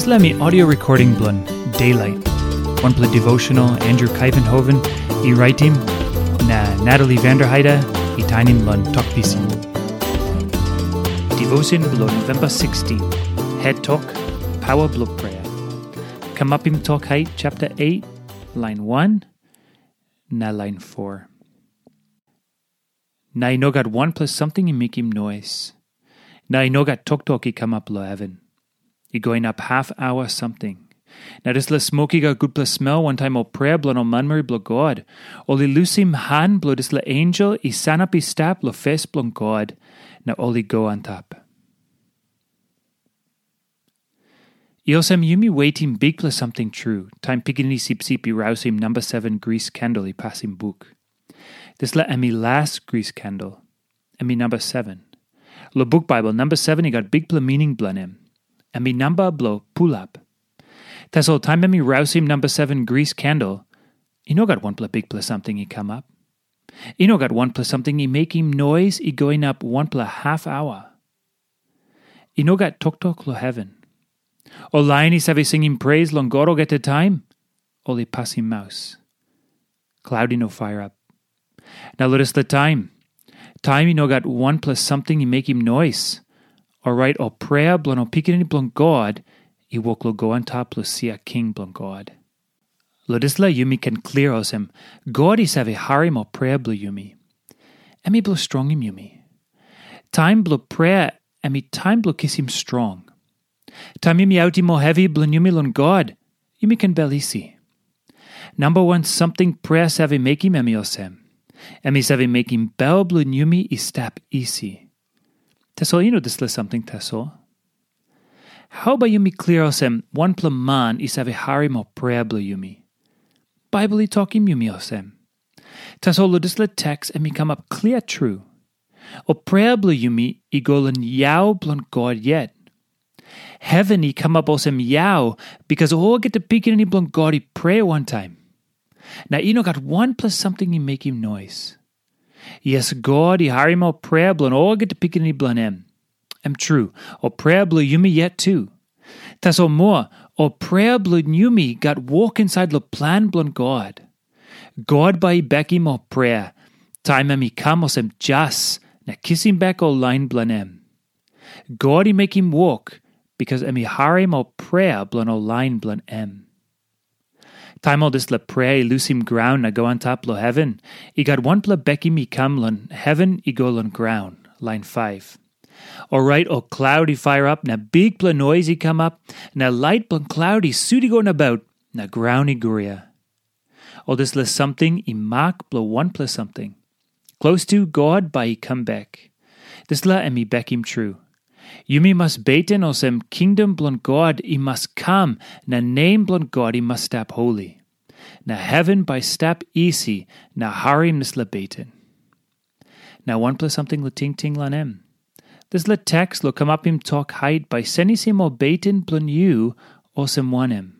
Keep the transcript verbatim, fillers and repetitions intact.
Dispela mi audio recording bilong Daylight, wanpela devotional Andrew Kaivenhoven i raitim, na Natalie Vanderheide i tainim long Tok Pisin. Devotion bilong November sixteen, Het Tok, Pawa bilong Prea. Kamapim Tok Hait, chapter eight, line one, na line four. Na i no gat wanpela samting i mekim nois. Na i no gat toktok i kamap long heven. I go inap haf aua samting. Na dispela smok i gat gutpela smel wantaim ol prea bilong ol manmeri bilong God. Ol i lusim han bilong dispela ensel i sanap i stap long fes bilong God, na ol i go antap. I olsem yumi wetim bikpela samting tru, taim Pikinini Sipsip i rausim namba seven gris kendel i pasim buk. Dispela em i las gris kendel. Em i namba seven. Long buk Baibel, namba seven i gat bikpela mining bilong em. Em i namba bilong pulap. Tasol taim em i rausim namba seven gris kendel, i no gat wanpela bikpela samting i kamap. I no gat wanpela samting i mekim nois i go inap wanpela haf aua. I no gat toktok long heven. Ol lain i save singim pres long God olgeta taim, ol i pasim maus. Klaut i no pairap. Na long dispela taim, taim i no gat wanpela samting i mekim nois, orait ol prea bilong ol pikinini bilong God i wok long go antap long sia king bilong God. Long dispela yumi ken klia olsem, God i save harim ol prea bilong yumi. Em i bilong strongim yumi. Taim bilong prea em i taim bilong kisim strong. Taim yumi autim ol hevi bilong yumi long God, yumi ken bel isi. Namba wan samting prea save mekim em i olsem, em i save mekim bel bilong yumi i stap isi. Tasol i no dispela samting tasol. Hau bai yumi klia olsem wanpela man i save harim ol prea bilong yumi? Baibel i tokim yumi olsem. Tasol long dispela teks em i kamap klia tru. Ol prea bilong yumi i go long yau bilong God yet. Heven i kamap olsem yau, bikas olgeta pikinini bilong God i prea wantaim. Na i no gat wanpela samting i mekim nois. Yes, God i harim ol prea bilong olgeta pikinini bilong em. Em tru, ol prea bilong yumi yet tu. Tasol moa, ol prea bilong yumi gat wok insait long plan bilong God. God bai i bekim ol prea, taim em i kam olsem jas na kisim bek ol lain bilong em. God i mekim wok, bikas em i harim ol prea bilong ol lain bilong em. Taim ol dispela prea i lusim graun na go antap long heven, i gat wanpela bekim i kam long heven i go long graun, lain five. Orait ol klaut i pairap na bikpela nois i kamap, na lait bilong klaut i sut i go nabaut, na graun i guria. Ol dispela samting i mak bilong wanpela samting. Klostu God bai i kam bek. Dispela em i bekim tru. Yumi mas beten olsem kingdom bilong God i mas kam na nem bilong God i mas stap holi. Na heven bai stap isi na harim dispela beten. Na wanpela samting long tingting long em. Dispela teks long kamapim tok hait bai senisim ol beten bilong yu olsem wanem?